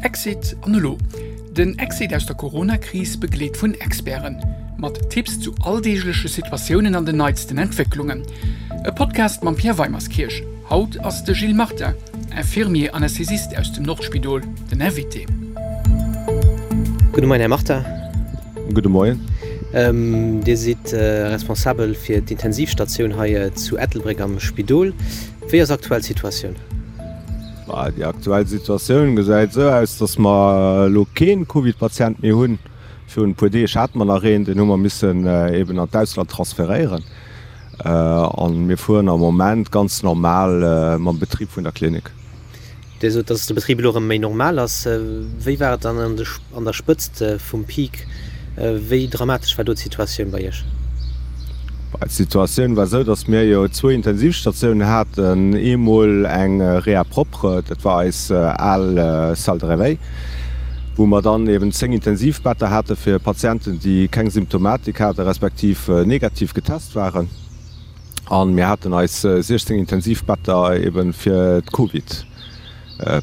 Exit an elo? Den Exit aus der Corona-Kris begleet vun Experten. Mat Tipps zu alldeegleche Situatiounen an den neitsten Entwécklungen. E Podcast mam Pierre Weimerskirch. Haut ass de Gilles Martin, Infirmier Anästhesist aus dem Nordspidol, den Invité. Gudde Moien, Här Martin. Gudde Moien. Dir sidd responsabel fir d'Intensivstatioun hei zu Ettelbréck am Spidol. Wéi ass aktuell d'Situatioun? Déi aktuell Situatioun gesäit esou aus, datt mer elo kee Covid-Patient méi hunn. Virun e puer Deeg hate mer nach een, deen hu mer missen eben an d'Ausland transferéieren. A mir fueren am Moment ganz normal mam Betrib vun der Klinik. Dir sot, datt de Betrib elo erëm méi normal ass. Wéi war et dann an der Spëtzt vum Peak? Wéi dramatesch war do d'Situatioun bei Iech? D'Situatioun war esou, datt mir jo zwou Intensivstatiounen haten. Eemol eng Réa propre, dat war eis al Salle de réveil, wou mer dann eben 10 Intensivbetter hate fir Patienten, déi keng Symptomatik hate respektiv negativ getest waren. A mir haten eis 16 Intensivbetter eben fir d'Covid.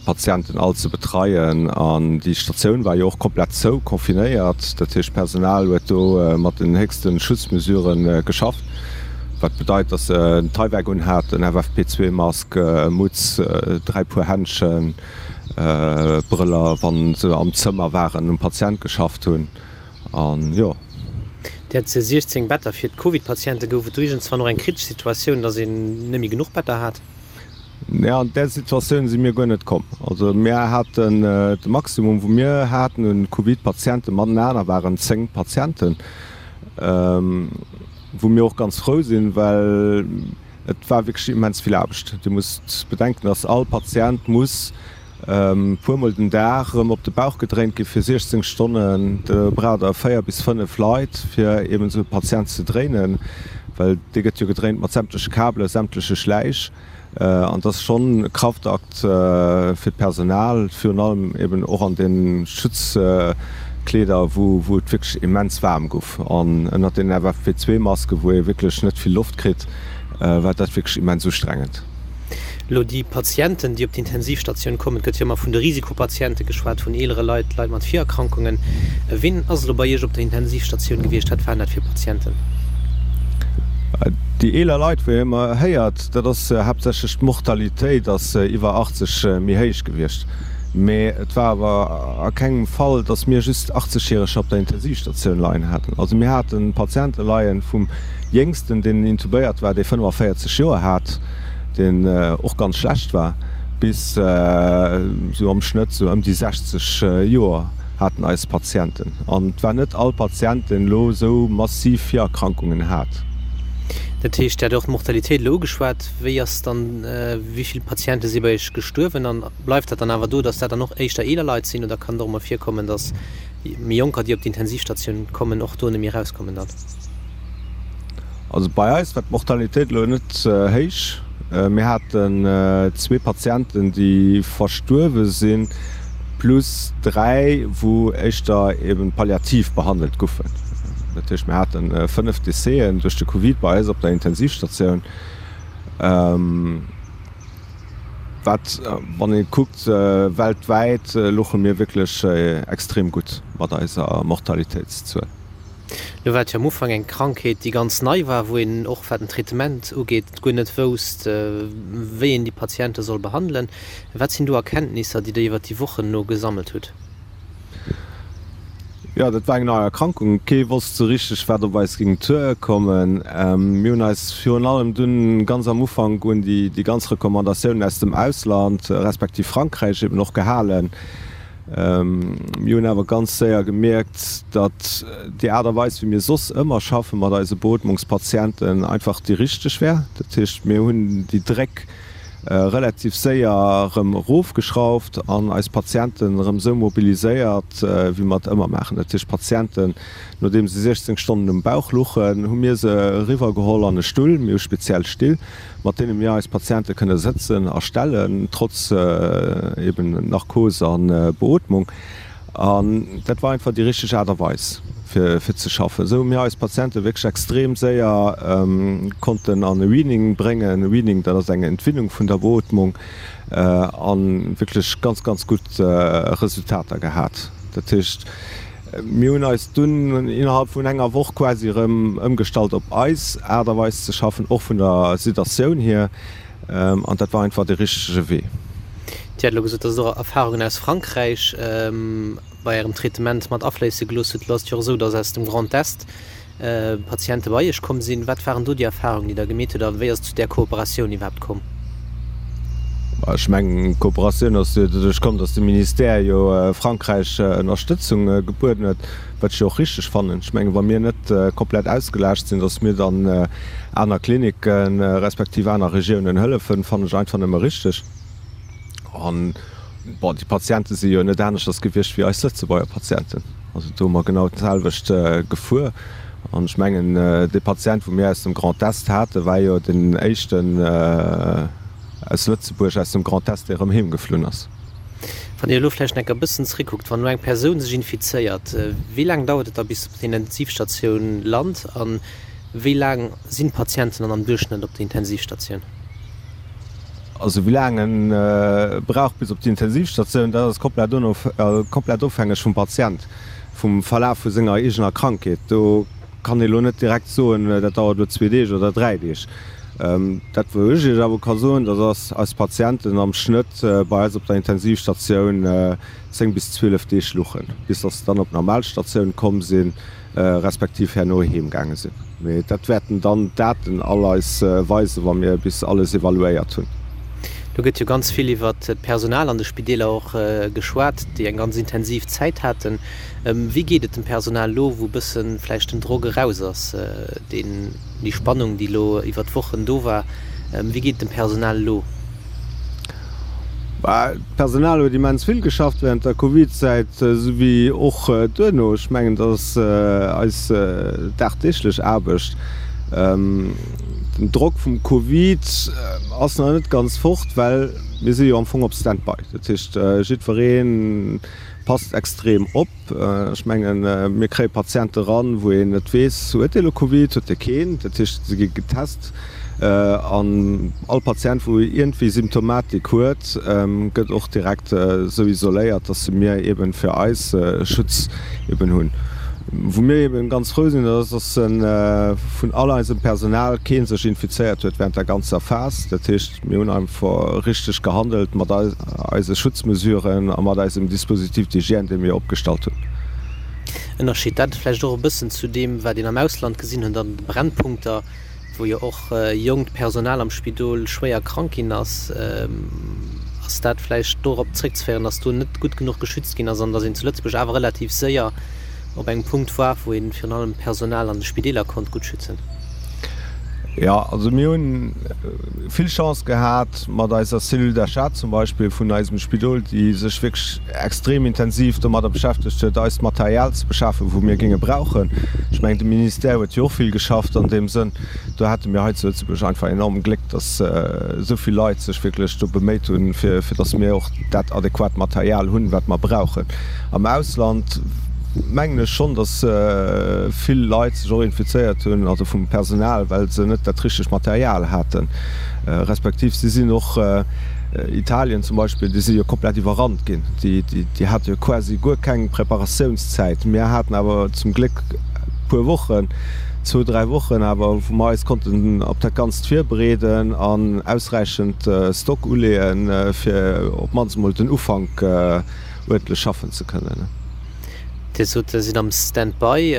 Patienten all ze betreien an déi Statioun war jo och komplett zou, confinéiert. Dat heescht d'Personal huet do mat den héchste Schutzmesurë geschafft, wat bedeit, datt se en Tyvek un haten, FFP2-Mask, Mutz, 3 Puer Händschen, Brëller, wa se am Zëmmer waren, um Patient geschafft hunn an jo. Dir hat 16 Better fir d'Covid-Patienten. Gouf et do iergendswann och eng kritesch Situatioun, datt een net méi genuch Better hat? Nee, an där Situatioun si mir guer net komm. Also mir haten de Maximum, wou mir haten un Covid-Patienten matenaner, waren 10 Patienten, wou mir och ganz frou sinn, well et war wierklech immens vill Aarbecht. Dir musst bedenken, dass all Patient muss puermol den Dag erëm op de Bauch gedréint gi fir 16 Stonnen. Do braucht Der 4 bis 5 Leit, fir eben esou e Patient ze dréinen, well dee gëtt jo gedréint mat sämtleche Kabelen, sämtleche Schläich. An dat ass schonn e Kraftakt fir d'Personal, virun allem eben och an de Schutzkleeder, wou et wierklech immens waarm gouf. An ënnert den FFP2-Masken, wou ee wierklech net vill Loft kritt, war dat wierklech immens ustrengend. Elo déi Patienten, déi op d'Intensivstatioun kommen, et gëtt jo ëmmer vun de Risikopatiente geschwat, vun eelere Leit, Leit mat Virerkrankungen. Wien ass elo bei Iech op der Intensivstatioun gewiescht? Wat waren dat fir Patienten? Déi eeler Leit, wou ee ëmmer héiert, dat ass haaptsächlech d'Mortalitéit ass iwwer 80 méi héich gewiescht. Mee et war awer a kengem Fall, datt mir just 80 Järeger op der Intensivstatioun leien haten. Also mir hate Patiente leien vum Jéngsten, deen intubéiert war, dee 45 Joer hat, deen och ganz schlecht war, bis esou am Schnëtt esou ëm déi 60 Joer haten eis Patienten. An et war net all Patient, deen elo esou massiv Virerkrankungen hat. Dat heescht, Dir hat och d'Mortalitéit elo ugeschwat. Wéi ass dann, wéi vill Patiente si bei Iech gestuerwen? An bleift dat dann awer do, datt dat dann och éischter eeler Leit sinn oder kann et och emol virkommen, datt méi Jonker, déi op d'Intensivstatioun kommen, och do net méi erauskommen dann? Also bei eis war d'Mortalitéit elo net héich. Mir haten zwee Patienten, déi verstuerwe sinn, plus 3, wou éischter eben palliativ behandelt goufen. Dat heescht, mir hate 5 Décèsen duerch de Covid bei eis op der Intensivstatioun. Wat, wann ee kuckt weltwäit, louche mir wierklech extrem gutt mat eiser Mortalitéitszuel. Lo war et jo am Ufank eng Krankheet, déi ganz nei war, wou een och wat den Traitement ugeet guer net wousst, wéi een déi Patiente soll behandelen. Wat sinn do Erkenntnisser, déi Der iwwer déi Wochen elo gesammelt hutt? Jo, dat war eng nei Erkrankung. Kee wosst sou richteg, wat op eis géing duerkommen. Mir hunn eis virun allem dunn ganz am Ufank un déi ganz Recommandatiounen aus dem Ausland, respektiv Frankräich eben och gehalen. Mir hunn awer ganz séier gemierkt, datt déi Aart a Weis, wéi mir soss ëmmer schaffe mat eise Beootmungspatienten, einfach déi richteg wär. Dat heescht, mir hunn déi Dréck relativ séier erëm erofgeschrauft an eis Patienten erëm esou mobiliséiert, wéi mer et ëmmer maachen. Dat heescht, d'Patienten, nodeem se 16 Stonnen um Bauch luchen, hu mir se eriwwergeholl an e Stull. Mir hu speziell Still, mat deene mir eis Patiente kënne sëtzen a stellen, trotz eben Narkos a Beootmung. An dat war einfach déi richteg Aart a Weis, fir ze schaffen. Esou hu mir eis Patiente wierklech extrem séier konnten an e Weaning bréngen. E Weaning, dat ass eng Entwinnung vun der Beootmung, a wierklech ganz, ganz gutt Resultater gehat. Dat heescht, mir hunn eis dunn innerhalb vun enger Woch quasi erëm ëmgestallt op eis Aart a Weis ze schaffen, och vun der Sedatioun hier. An dat war einfach dee richtege Wee. Dir hat elo gesot, dass Der och Erfahrungen aus Frankräich bei Ärem Traitement mat afléisse gelooss hutt. Elo ass et jo och esou, dass aus dem Grand Est Patiente bei Iech komm sinn. Wat waren do déi Erfahrungen, déi Der gemeet hutt a wéi ass et zu där Kooperatioun iwwerhaapt komm? Ech mengen, d'Kooperatioun ass jo doduerch komm, dass de Ministère jo Frankräich Ënnerstëtzung gebueden huet, wat ech jo och richteg fannen. Ech mengen, wa mir net komplett ausgelaascht sinn, dass mir dann aner Klinicken, respektiv aner Regiounen hëllefen, fannen ech einfach nëmme richteg. An, bon, déi Patiente si jo net aneschters gewiescht wéi eis Lëtzebuerger Patienten. Also do hu mer genau d'selwecht gefuer. An ech mengen, dee Patient, wou mir aus dem Grand Est haten, war jo deen éischten aus Lëtzebuerg, aus dem Grand Est, dee erëm heem geflunn ass. Wann Dir elo vläicht nach e bëssen zréckkuckt, wann elo eng Persoun sech infizéiert, wéi laang dauert et da bis se op der Intensivstatioun lant? An Wéi laang sinn d'Patienten dann am Duerchschnëtt op der Intensivstatioun? Also wéi laang e brauch bis op d'Intensivstatioun, dat ass komplett komplett ofhängeg vum Patient, vum Verlaf vu senger eegener Krankheet. Do kann ee lo net direkt soen, dat dauert elo zwee Deeg oder dräi Deeg. Dat wou ech Iech awer ka soen, dat ass, eis Patienten am Schnëtt bei eis op der Intensivstatioun 10 bis 12 Deeg luchen, bis datt se dann op d'Normalstatioun komm sinn. respektiv herno heem gaange sinn. Mee dat wäerten dann d'Daten all eis weisen, wa mir bis alles evaluéiert hunn. Do gëtt jo ganz vill iwwert d'Personal an de Spideeler och geschwat, déi eng ganz intensiv Zäit haten. Wéi geet et dem Personal elo, wou e bësse vläicht den Drock eraus ass, deen, déi Spannung, déi elo iwwert d'Wochen do war? Wéi geet et dem Personal elo? D'Personal huet immens vill geschafft während der Covid-Zäit, esou wéi och duerno. Ech mengen, dat ass eis dagdeeglech Aarbecht. Den Drock vum Covid ass nach net ganz fort, well mir si jo am Fong op Stand-by. Dat heescht, jiddweree passt extrem op. Ech mengen, mir kréie Patiente ran, wou een net weess, huet dee elo Covid, huet dee keen. Dat heescht, se gi getest an all Patient, wou iergendwéi Symptomatik huet, gëtt och direkt esou isoléiert, dass mir eeben fir eis Schutz eeben hunn. Wou mir eeben ganz frou sinn, dat ass, dass vun all eisem Personal kee sech infizéiert huet während der ganzer Phas. Dat heescht, Mir hunn einfach richteg gehandelt mat eise Schutzmesuren a mat eisem Dispositif d'hygiène, dee mir opgestallt hunn. Ënnerscheet dat vläicht och e bëssen zu deem, wat een am Ausland gesinn huet an de Brennpunkter, wou jo och jonkt Personal am Spidol schwéier krank ginn ass? Ass dat vläicht dorop zréckzeféieren, datt do net gutt genuch geschützt ginn ass an datt een zu Lëtzebuerg awer relativ séier op engem Punkt war, wou een virun allem d'Personal an de Spideeler konnt gutt schützen? Jo, also mir hunn vill Chance gehat mat eiser Cellule d'achat zum Beispill vun eisem Spidol, déi sech wierklech extrem intensiv domadder beschäftegt huet, eist Material ze beschafen, wou mir géinge brauchen. Ech mengen, de Ministère huet jo och vill geschafft an deem Sënn. Do hate mir hei zu Lëtzebuerg einfach enorm Gléck, dass esou vill Leit sech wierklech do beméit hunn, fir dass mir och dat adequat Material hunn, wat mer brauchen. Am Ausland mengen ech schonn, dass vill Leit sech och infizéiert hunn, also vum Personal, well se net dat richtegt Material haten, respektiv si sinn och, Italien zum Beispill, déi si jo komplett iwwerrannt ginn, déi hate jo quasi guer keng Preparatiounszäit. Mir haten awer zum Gléck e puer Wochen, zwou, dräi Wochen awer, wou mer eis konnten op dat Ganzt virbereeden an ausräichend Stock uleeën, fir op d'mannst emol den Ufank uerdentlech schaffen ze kënnen. Dir sot, Der sidd am Stand-by,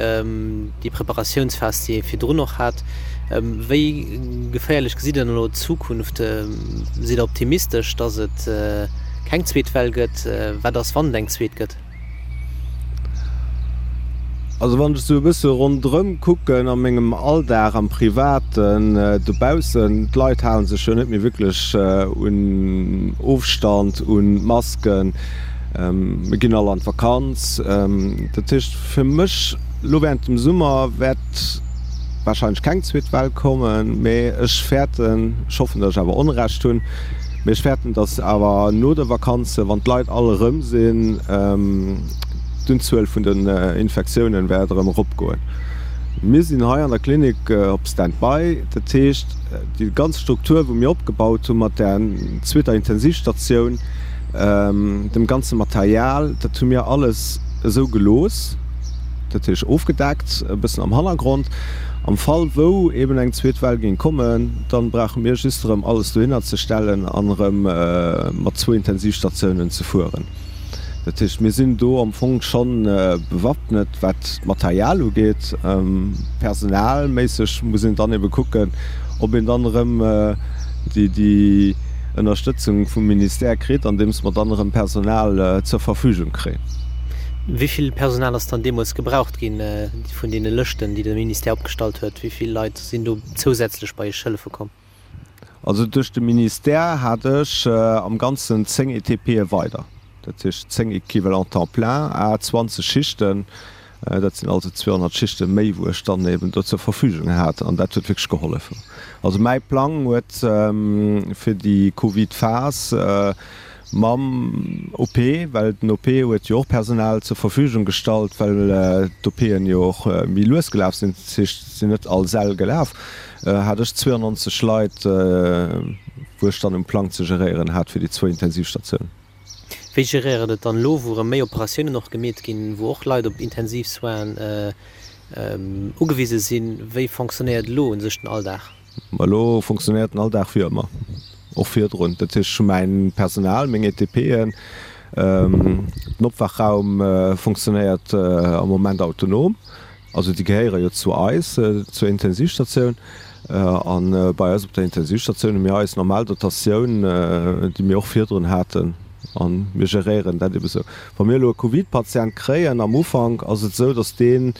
déi Preparatiounsphas, déi ee virdrun och hat. Wéi geféierlech gesitt Der dann elo d'Zukunft? Sidd Der optimistesch, datt et keng zweet Well gëtt? Wat ass, wann et eng zweet gëtt? Also wann ech esou e bësse ronderëm kucken a mengem Alldag, am Privaten, dobaussen, d'Leit hale sech jo net méi wierklech un Ofstand, un Masken, mir ginn all an d'Vakanz. Dat heescht fir mech elo während dem Summer wäert warscheinlech keng zweet Well kommen, mee ech fäerten, ech hoffen, datt ech awer Onrecht hunn, mee ech fäerten, datt awer no de Vakanze, wann d'Leit all erëm sinn. d'Unzuel vun den Infektiounen wäert erëm eropgoen. Mir sinn hei an der Klinik op Stand-by. Dat heescht, déi ganz Struktur, wou mir opgebaut hu mat där zweeter Intensivstatioun, dem ganze Material, dat hu mir alles esou gelooss, dat heescht ofgedeckt, e bëssen am Hannergrond. Am Fall wou eben eng zweet Well géing kommen, dann brauche mir just erëm alles dohinner ze stellen an erëm mat zwou Intensivstatiounen ze fueren. Dat heescht, mir sinn do am Fong scho bewaffnet, wat d'Material ugeet. Personalméisseg muss een dann ebe kucken, ob een dann erëm déi Ënnerstëtzung vum Ministère kritt, andeems mer dann erëm Personal zur Verfügung kréien. Wéi vill Personal ass dann deemools gebraucht ginn vun deene Lëschten, déi de Ministère opgestallt huet? Wéi vill Leit sinn do zousätzlech bei Iech hëllefe komm? Also duerch de Ministère hat ech am Ganzen 10 ETPe weider, dat heescht 10 Equivalents temps plein à 20 Schichten. Dat sinn also 200 Schichte méi, wou ech dann eben do zur Verfügung hat an dat huet wierklech gehollef. Also mäi Plang huet fir déi Covid-Phas mam OP, well den OP huet jo och Personal zur Verfügung gestallt, well d'OPen jo och méi lues gelaf sinn, dat heescht, et sinn net all Säll gelaf, hat ech 92 Leit, wou ech dann um Plang ze geréieren hat fir déi zwou Intensivstatiounen. Wéi geréiert et dann elo, wou erëm méi Operatiounen och gemeet ginn, wou och Leit op Intensivsoinen ugewise sinn? Wéi fonctionnéiert elo un sech den Alldag? Ma elo fonctionnéiert den Alldag wéi ëmmer, och virdrun. Dat heescht, ech hu mäin Personal, meng ETPen, den Opwaachraum fonctionnéiert am Moment autonom. Also déi gehéiere jo zu eis, zur Intensivstatioun. A bei eis op der Intensivstatioun hu mir eis normal Dotatioun, déi mir och virdrun haten. A mir geréieren dat ebe sou. Wa mir elo e Covid-Patient kréien am Ufank, ass et esou, datt dee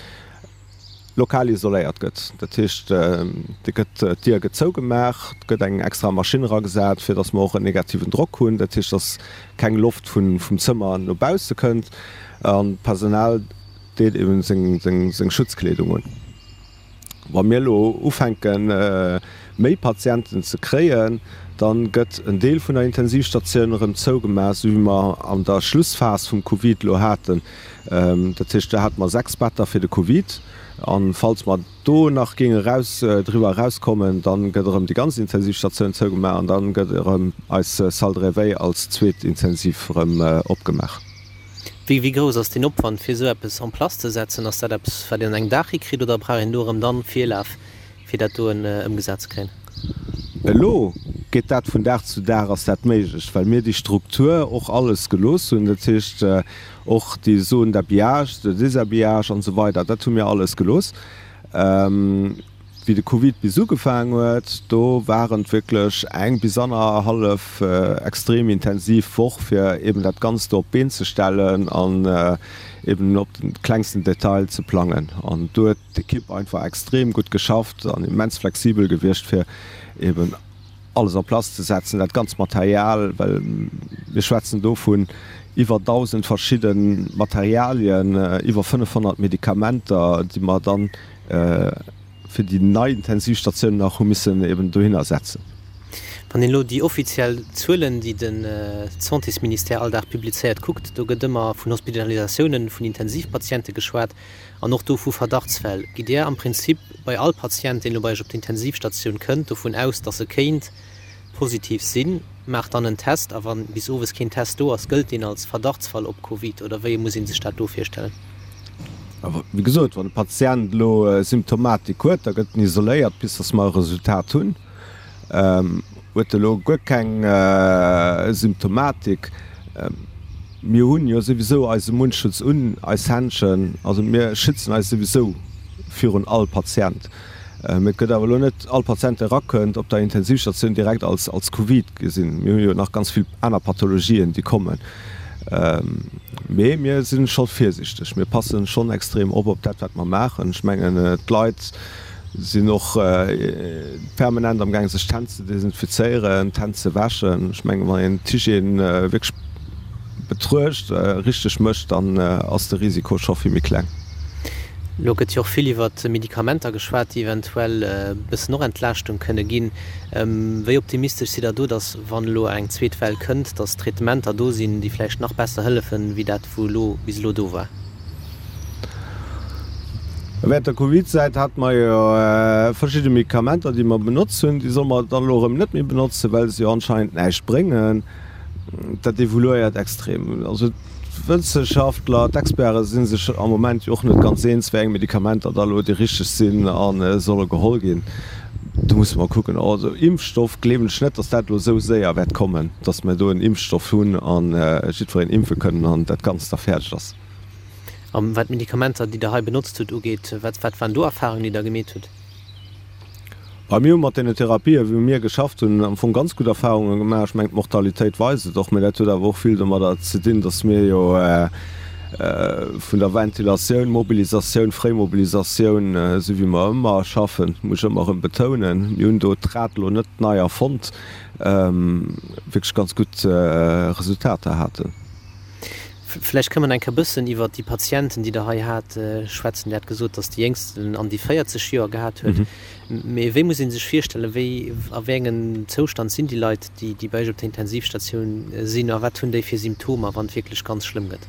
lokal isoléiert gëtt. Dat heescht, dee gëtt, d'Dier gëtt zougemaach, et gëtt eng extra Maschinn eragesat, fir datt mer och en negativen Drock hunn. Dat heescht, datt keng Loft vum Zëmmer no bausse kënnt. An d'Personal deet eben seng Schutzkleedung un. Wa mir elo ufänken, méi Patienten ze kréien, da gëtt en Deel vun der Intensivstatioun erëm zougemaach, esou wéi mer an der Schlussphas vum Covid elo haten. Dat heescht, do hate mer 6 Better fir de Covid. A falls mer do nach géinge eraus, driwwer erauskommen, da gëtt erëm déi ganz Intensivstatioun zougemaach an da gëtt erëm eis Salle de réveil als zweet Intensiv erëm opgemaach. Wéi grouss ass deen Opwand fir esou eppes en place ze setzen? Ass dat eppes wat een an engem Dag hikritt oder brauch een do erëm dann Virlaf fir dat doen ëmgesat ze kréien? Elo geet dat vun Dag zu Dag ass dat méiglech, well mir déi Struktur och alles gelooss hunn, dat heescht och déi Zone d'habillage, de déshabillage an esou weider, dat hu mir alles gelooss. Wéi de Covid bis ugefaang huet, do waren et wierklech eng bis annerhallef extrem intensiv Woch, fir eben dat Ganzt do op d'Been ze stellen an eben op de klengsten Detail ze plangen. An do huet d'Ekipp einfach extrem gutt geschafft an immens flexibel gewiescht, fir eben alles en place ze setzen, dat ganzt Material, well mir schwätzen do vun iwwer 1.000 verschidde Materialien, iwwer 500 Medikamenter, déi mer dann fir déi nei Intensivstatioun nach hu missen eben dohinner setzen. Wann een elo déi offiziell Zuelen, déi de Santésministère all Dag publizéiert, kuckt, do gëtt ëmmer vun Hospitalisatiounen vun Intensivpatiente geschwat an och do vu Verdachtsfäll. Gitt Dir am Prinzip bei all Patient, deen elo bei Iech op d'Intensivstatioun kënnt, dovun aus, datt e kéint positiv sinn, maacht dann en Test a wann bis owes keen Test do ass, gëllt deen als Verdachtsfall op Covid oder wéi muss ee sech dat do virstellen? Wéi gesot, wann e Patient elo Symptomatik huet, da gëtt en isoléiert bis datt mer e Resultat hunn. Huet e elo guer keng Symptomatik, mir hunn jo souwisou eise Mundschutz un, eis Händschen, also mir schützen eis souwisou virun all Patient. Mee et gëtt awer elo net all Patient, dee erakënnt op der Intensivstatioun, direkt als als Covid gesinn. Mir hu jo nach ganz vill aner Pathologien, déi kommen. Mee mir si scho virsiichteg. Mir passen schonn extrem op op dat, wat mer maachen. Ech mengen, d'Leit sinn och permanent amgaang, sech d'Hänn ze desinfizéieren, d'Hänn ze wäschen. Ech mengen, wann een d'Hygiène wierklech betruecht, richteg mécht, dann ass de Risiko scho vill méi kleng. Elo gëtt jo och vill iwwer Medikamenter geschwat, déi eventuell e bëssen och Entlaaschtung kënne ginn. Wéi optimistesch sidd Der do, datt, wann elo eng zweet Well kënnt, datt Traitementer do sinn, déi vläicht nach besser hëllefen, wéi dat, wou elo bis elo do war? Während der Covid-Zäit hate mer jo verschidde Medikamenter, déi mer benotzt hunn. Déi solle mer dann elo erëm net méi benotzen, well se jo anscheinend näischt bréngen. Dat evoluéiert extrem. Also d'Wëssenschaftler, d'Experte si sech am Moment jo och net ganz eens, wéi eng Medikamenter da elo déi richteg sinn a solle geholl ginn. Do musse mer kucken. Also Impfstoff gleewen ech net, datt dat elo esou séier wäert kommen, datt mer do en Impfstoff hunn a jiddwereen impfe kënnen an dat Ganzt da fäerdeg ass. A wat d'Medikamenter, déi Der hei benotzt hutt, ugeet, wat wat waren do Erfahrungen, déi Der gemeet hutt? Bei mir hu mat deene Therapien, wou mir geschafft hunn, am Fong ganz gutt Erfahrunge gemaach. Ech mengen, d'Mortalitéit weist et och. Mä dat huet awer och vill domadder ze dinn, datt mir jo vun der Ventilatioun, Mobilisatioun, Fréimobilisatioun, esou wéi mer ëmmer schaffen, muss ech ëmmer erëm betounen, mir hunn do d'Rad elo net nei erfonnt, wierklech ganz gutt Resultater haten. Vläicht kënne mer eng Kéier bëssen iwwert déi Patienten, déi Der hei hat, schwätzen. Dir hat gesot, dass déi Jéngsten an déi 40 Joer gehat huet. Mee wéi muss ee sech virstellen, wéi, a wéi engem Zoustand sinn déi Leit, déi, déi bei Iech op der Intensivstatioun sinn a wat hunn déi fir Symptomer, wann et wierklech ganz schlëmm gëtt?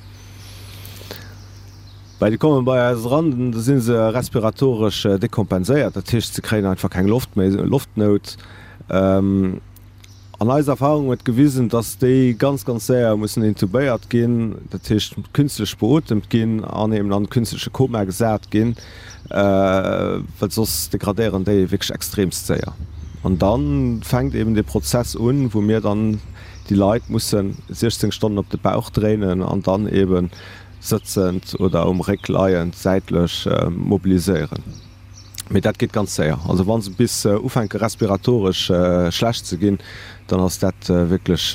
Well déi komme bei eis eran, da si se respiratoresch dekompenséiert, dat heescht, se kréien einfach keng Loft méi, Loftnout. An eis Erfahrung huet gewisen, dass déi ganz, ganz séier mussen intubéiert ginn, dat heescht künstlech beotemt ginn an eben an künstleche Koma gesat ginn, well soss degradéieren déi wierklech extremst séier. An da fänkt eben dee Prozess un, wou mir dann déi Leit mussen 16 Stonnen op de Bauch dréinen an dann eben sëtzend oder um Réck leiend säitlech mobiliséieren. Mee dat geet ganz séier. Also wa se bis ufänke respiratoresch schlecht ze ginn, dann ass dat wierklech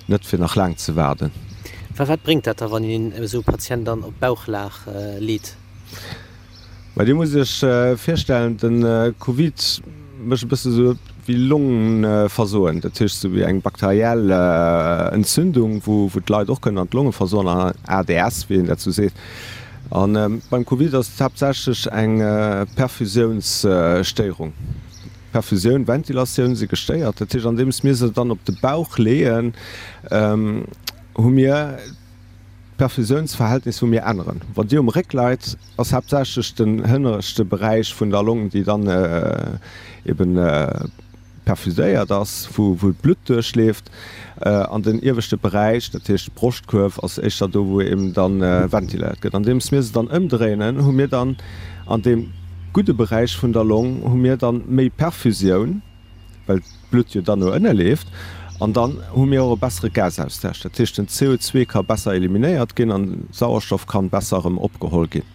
net fir nach laang ze waarden. Wa wat bréngt dat da wann een esou e Patient dann op d'Bauchlag leet? Mä Dir musst Iech virstellen, de Covid mécht e bësse sou wéi Longeversoen, dat heescht sou wéi eng bakteriell Entzündung, wou d'Leit och kënnen an d'Longe versoen, an ADS, wéi een dat sou seet. A beim Covid ass et haaptsächlech eng Perfusiounsstéierung. Perfusioun, Ventilatioun si gestéiert. Dat heescht, andeems mir se dann op de Bauch leeën, hu mir d'Perfusiounsverhältnis, wou mir änneren. Wann Dir um Réck leit, ass haaptsächlech den hënneschte Beräich vun der Long, déi dann eben perfuséiert ass, wou d'Blutt duerchleeft, an den ieweschte Beräich, dat heescht d'Broschtkuerf, ass éischter do, wou eben da ventiléiert gëtt. Andeems mir se dann ëmdréinen, hu mir dann an deem gudde Beräich vun der Long hu mir dann méi Perfusioun, well d'Blutt jo dann no ënne leeft, an dann hu mir och e bessere Gasaustausch. Dat heescht, den CO2 ka besser eliminéiert ginn an Sauerstoff kann besser erëm opgeholl ginn.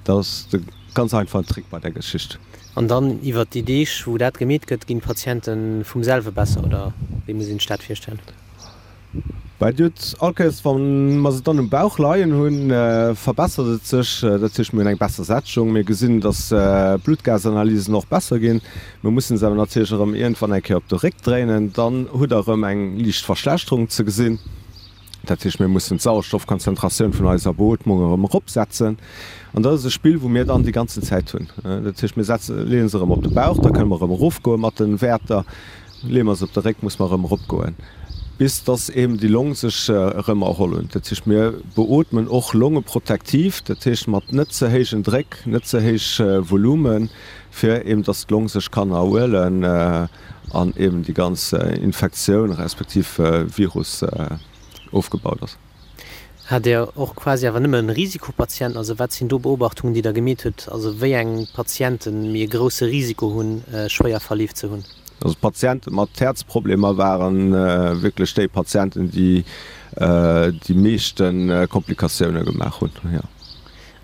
Dat ass de ganz einfachen Trick bei der Geschicht. An dann iwwert déi Deeg, wou dat gemeet gëtt, ginn d'Patiente vum selwe besser, oder wéi muss een sech dat virstellen? Bah, Dir hutt all Kéiers, wa mer se dann um Bauch leien hunn, verbessert et sech. Dat heescht, mir hunn eng besser Sättegung, mir gesinn, datt d'Bluttgasanalysen och besser ginn. Mir mussen se awer natierlech erëm iergendwann eng Kéier op de Réck dréinen, dann hutt Der erëm eng liicht Verschlechterung ze gesinn. Dat heescht, mir mussen d'Sauerstoffkonzentratioun vun eiser Beootmung erëm eropsetzen. An dat ass e Spill, wou mir dann déi ganzen Zäit hunn. Dat heescht, mir setzen, leeën se erëm op de Bauch, da kënne mer erëm erofgoe mat de Wäerter. Leeë mer se op de Réck, muss mer erëm eropgoen, bis dass eben déi Long sech erëm erholl hunn. Dat heescht, mir beootmen och longeprotektiv, dat heescht mat net ze héijen Dréck, net ze héich Volumen, fir eben dass d'Long sech kann erhuelen. an eben déi ganz Infektioun respektiv Virus ofgebaut ass. Hat Dir och quasi awer nëmme Risikopatienten? Also wat sinn do Beobachtungen, déi Der gemeet hutt? Also wéi eng Patienten méi e grousse Risiko hunn, schwéier Verleef ze hunn? Also d'Patiente mat Häerzproblemer ware wierklech déi Patienten, déi déi meeschte Komplikatioune gemaach hunn, jo.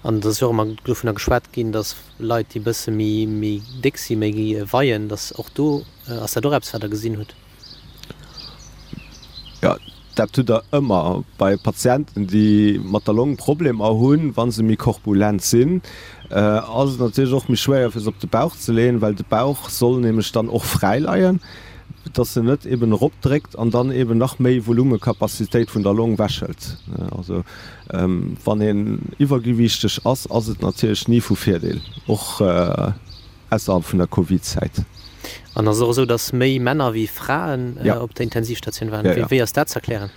An et ass jo och ëmmer dovunner geschwat ginn, datt Leit, déi e bësse méi, méi déck sinn, méi weien, datt och do, ass dat och eppes, wat Der gesinn hutt? Jo, dat hutt Der ëmmer bei Patienten, déi mat der Long Problemer hunn. Wa se méi korpulent sinn, ass et natierlech och méi schwéier, fir se op de Bauch ze leeën, well de Bauch soll nämlech dann och fräi leien, dass en net eben eropdréckt an dann eben nach méi Volumekapazitéit vun der Long wechhëlt. Also Wann een iwwergewiichteg ass, ass et natierlech ni vu Virdeel, och ausserhalb vun der Covid-Zäit. An ass et och esou, datt méi Männer wéi Fraen op der Intensivstatioun waren? Wéi ass dat z'erklären?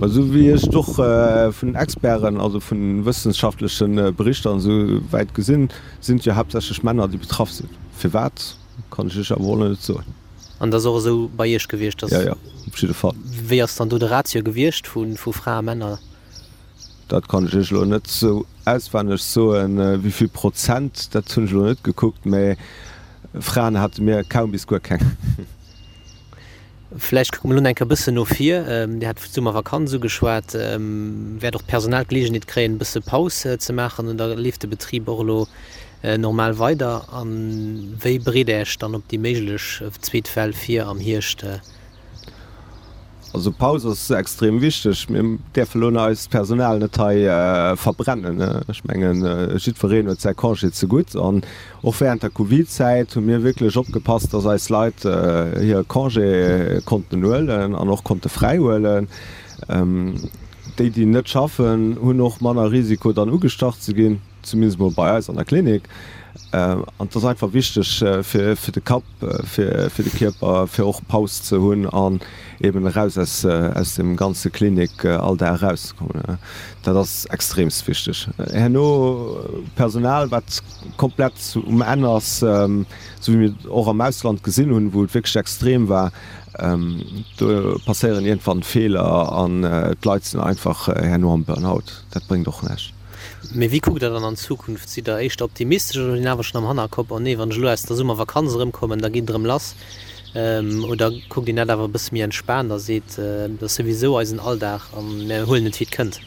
Esou wéi ech et och vun Experten, also vu wëssenschaftleche Berichter an esou wäit gesinn, sinn et jo haaptsächlech Männer, déi betraff sinn. Firwat, kann ech Iech awer och net soen. An dat ass och esou bei Iech gewiescht, dass. Jo, jo, op jidde Fall. Wéi ass dann do de Ratio gewiescht vu Fra a Männer? Dat kann ech Iech elo net esou auswenneg soen, wéi vill Prozent, dat hunn ech elo net gekuckt, mä Fraen hate mir kaum bis guer keng. Vläicht kucke mer elo nach eng Kéier e bëssen no vir. Dir hat d'Summervakanz ugeschwat. Wäert och d'Personal d'Geleegenheet kréien, e bësse Paus ze maachen oder leeft de Betrib och elo normal weider? A wéi bereet Der Iech dann op déi méiglech zweet Well vir am Hierscht? Also Paus ass extrem wichteg. Mir däerfe lo eist Personal net hei verbrennen. Ech mengen, jiddwereen huet säi Congé zegutt. An och während der Covid-Zäit hu mir wierklech opgepasst, dass eis Leit hire Congé konnten huelen an och konnte fräi huelen. Déi, déi net schaffen, hunn och manner Risiko dann ugestach ze ginn. Zumindest mol bei eis an der Klinik. An et ass einfach wichteg fir de Kapp, fir de Kierper, fir och Paus ze hunn an eben eraus aus aus dem ganze Klinik-Alldag erauszekommen. Dat ass extreemst wichteg. Herno Personal, wat komplett um Enn ass, esou wéi mir et och am Ausland gesinn hunn, wou et wierklech extrem war, do passéieren iergendwann Feeler an d'Leit sinn einfach herno am Burnout. Dat bréngt och näischt. Mee wéi kuckt Der dann an d'Zukunft? Sidd Der éischter optimistesch oder hutt een awer schonn am Hannerkopp, oh nee, wann ech elo aus der Summervakanz erëmkommen, da geet et erëm lass? Oder kuckt een dat awer e bësse méi entspaant a seet, dat ass souwisou eisen Alldag a mir huelen et wéi et kënnt?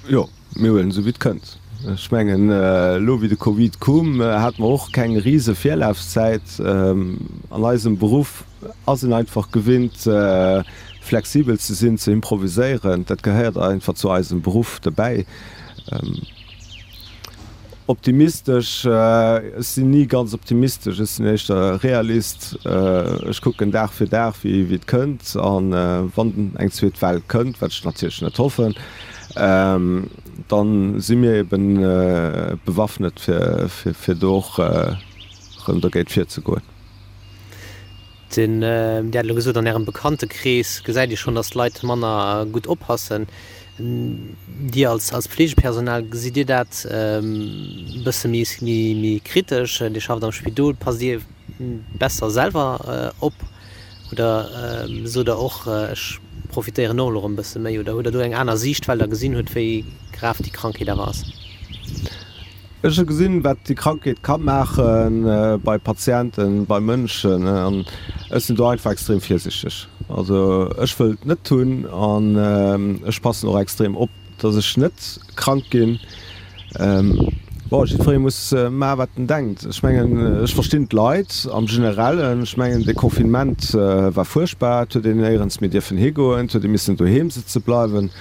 Jo, mir huelen esou wéi et kënnt. Ech mengen, elo wéi de Covid koum, hate mer och keng rise Virlafzäit. An eisem Beruff ass een einfach gewinnt, flexibel ze sinn, ze improviséieren. Dat gehéiert einfach zu eisem Beruff dobäi. Optimistesch, ech sinn ni ganz optimistesch, ech sinn éischter Realist. Ech kucken Dag fir Dag, wéi et kënnt. A wann eng zweet Well kënnt, wat ech natierlech net hoffen, da si mir eben bewaffnet, fir do och erëm dogéint virzegoen. Den, Dir hat elo gesot, an Ärem Bekanntekrees gesäit Dir schonn, datt d'Leit manner gutt oppassen. Dir als, als Pflegepersonal, gesitt Dir dat e bësse méi, méi kritesch? Dir schafft am Spidol, passt Dir besser selwer op oder sot Der och, ech profitéieren och elo erëm e bësse méi? Oder hutt Der do eng aner Siicht, well Der gesinn hutt, wéi grav déi Krankheet awer ass? Ech hu gesinn, wat déi Krankheet ka maache bei Patienten, bei Mënschen, an ech sinn do einfach extrem virsichteg. Also ech wëll et net hunn an ech passen och extrem op, dass ech net krank ginn. Bon, jiddweree muss maachen, wat en denkt. Ech mengen, ech verstinn d'Leit am Generellen. Ech mengen, de Confinement war fuerchtbar, et huet een néierens méi dierfen higoen, et huet ee missen doheem sëtze bleiwen.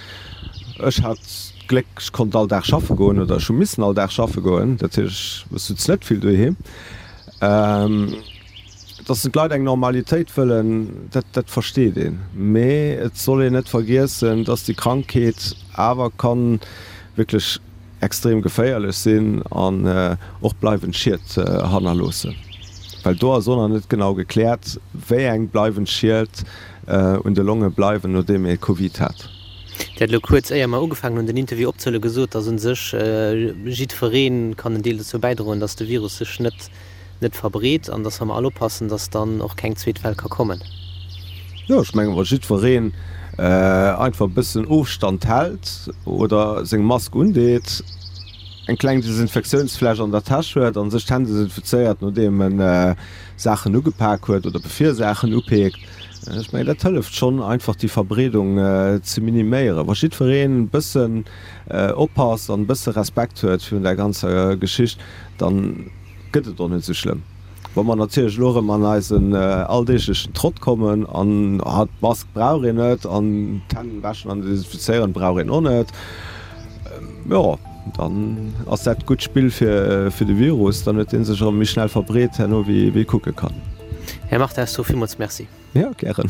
Ech hat d'Gléck, ech konnt all Dag schaffe goen oder ech hu missen all Dag schaffe goen. Dat heescht, ech sutz net vill doheem. Dass d'Leit eng Normalitéit wëllen, dat, dat versteet een. Mee et soll een net vergiessen, dass déi Krankheet awer ka wierklech extrem geféierlech sinn an och bleiwend Schied hannerloossen. Well do ass och nach net genau gekläert, wéi eng bleiwend Schied un de Longe bleiwen, nodeem ee Covid hat. Dir hat elo kuerz, éier mer ugefaangen hunn den Interview opzehuelen, gesot, datt u sech jiddweree kann en Deel dozou bäidroen, datt de Virus sech net net verbreet an datt, wa mer all oppassen, datt dann och keng zweet Well ka kommen. Jo, ech mengen, wa jiddwereen einfach e bëssen Ofstand hält oder seng Mask undeet, eng kleng Desinfektiounsfläsch an der Täsch huet a sech d'Hänn desinfizéiert, nodeem en Saachen ugepak huet oder bevir e Saachen upeekt, Ech mengen, dat hëlleft schonn einfach déi Verbreedung ze miniméieren. Wa jiddwereen e bëssen oppasst an e bësse Respekt huet virun där ganzer Geschicht, da gëtt et och net esou schlëmm. Wa mer natierlech elo erëm an eisen alldeeglechen Trott kommen an, ah, d'Mask brauch een net an d'Hänn wäschen an desinfizéieren brauch een och net, jo, dann ass dat gutt Spill fir de Virus. Dann huet dee sech erëm méi schnell verbreet herno, wéi ee kucke kann. Här Martins, villmools Merci. Jo, gären.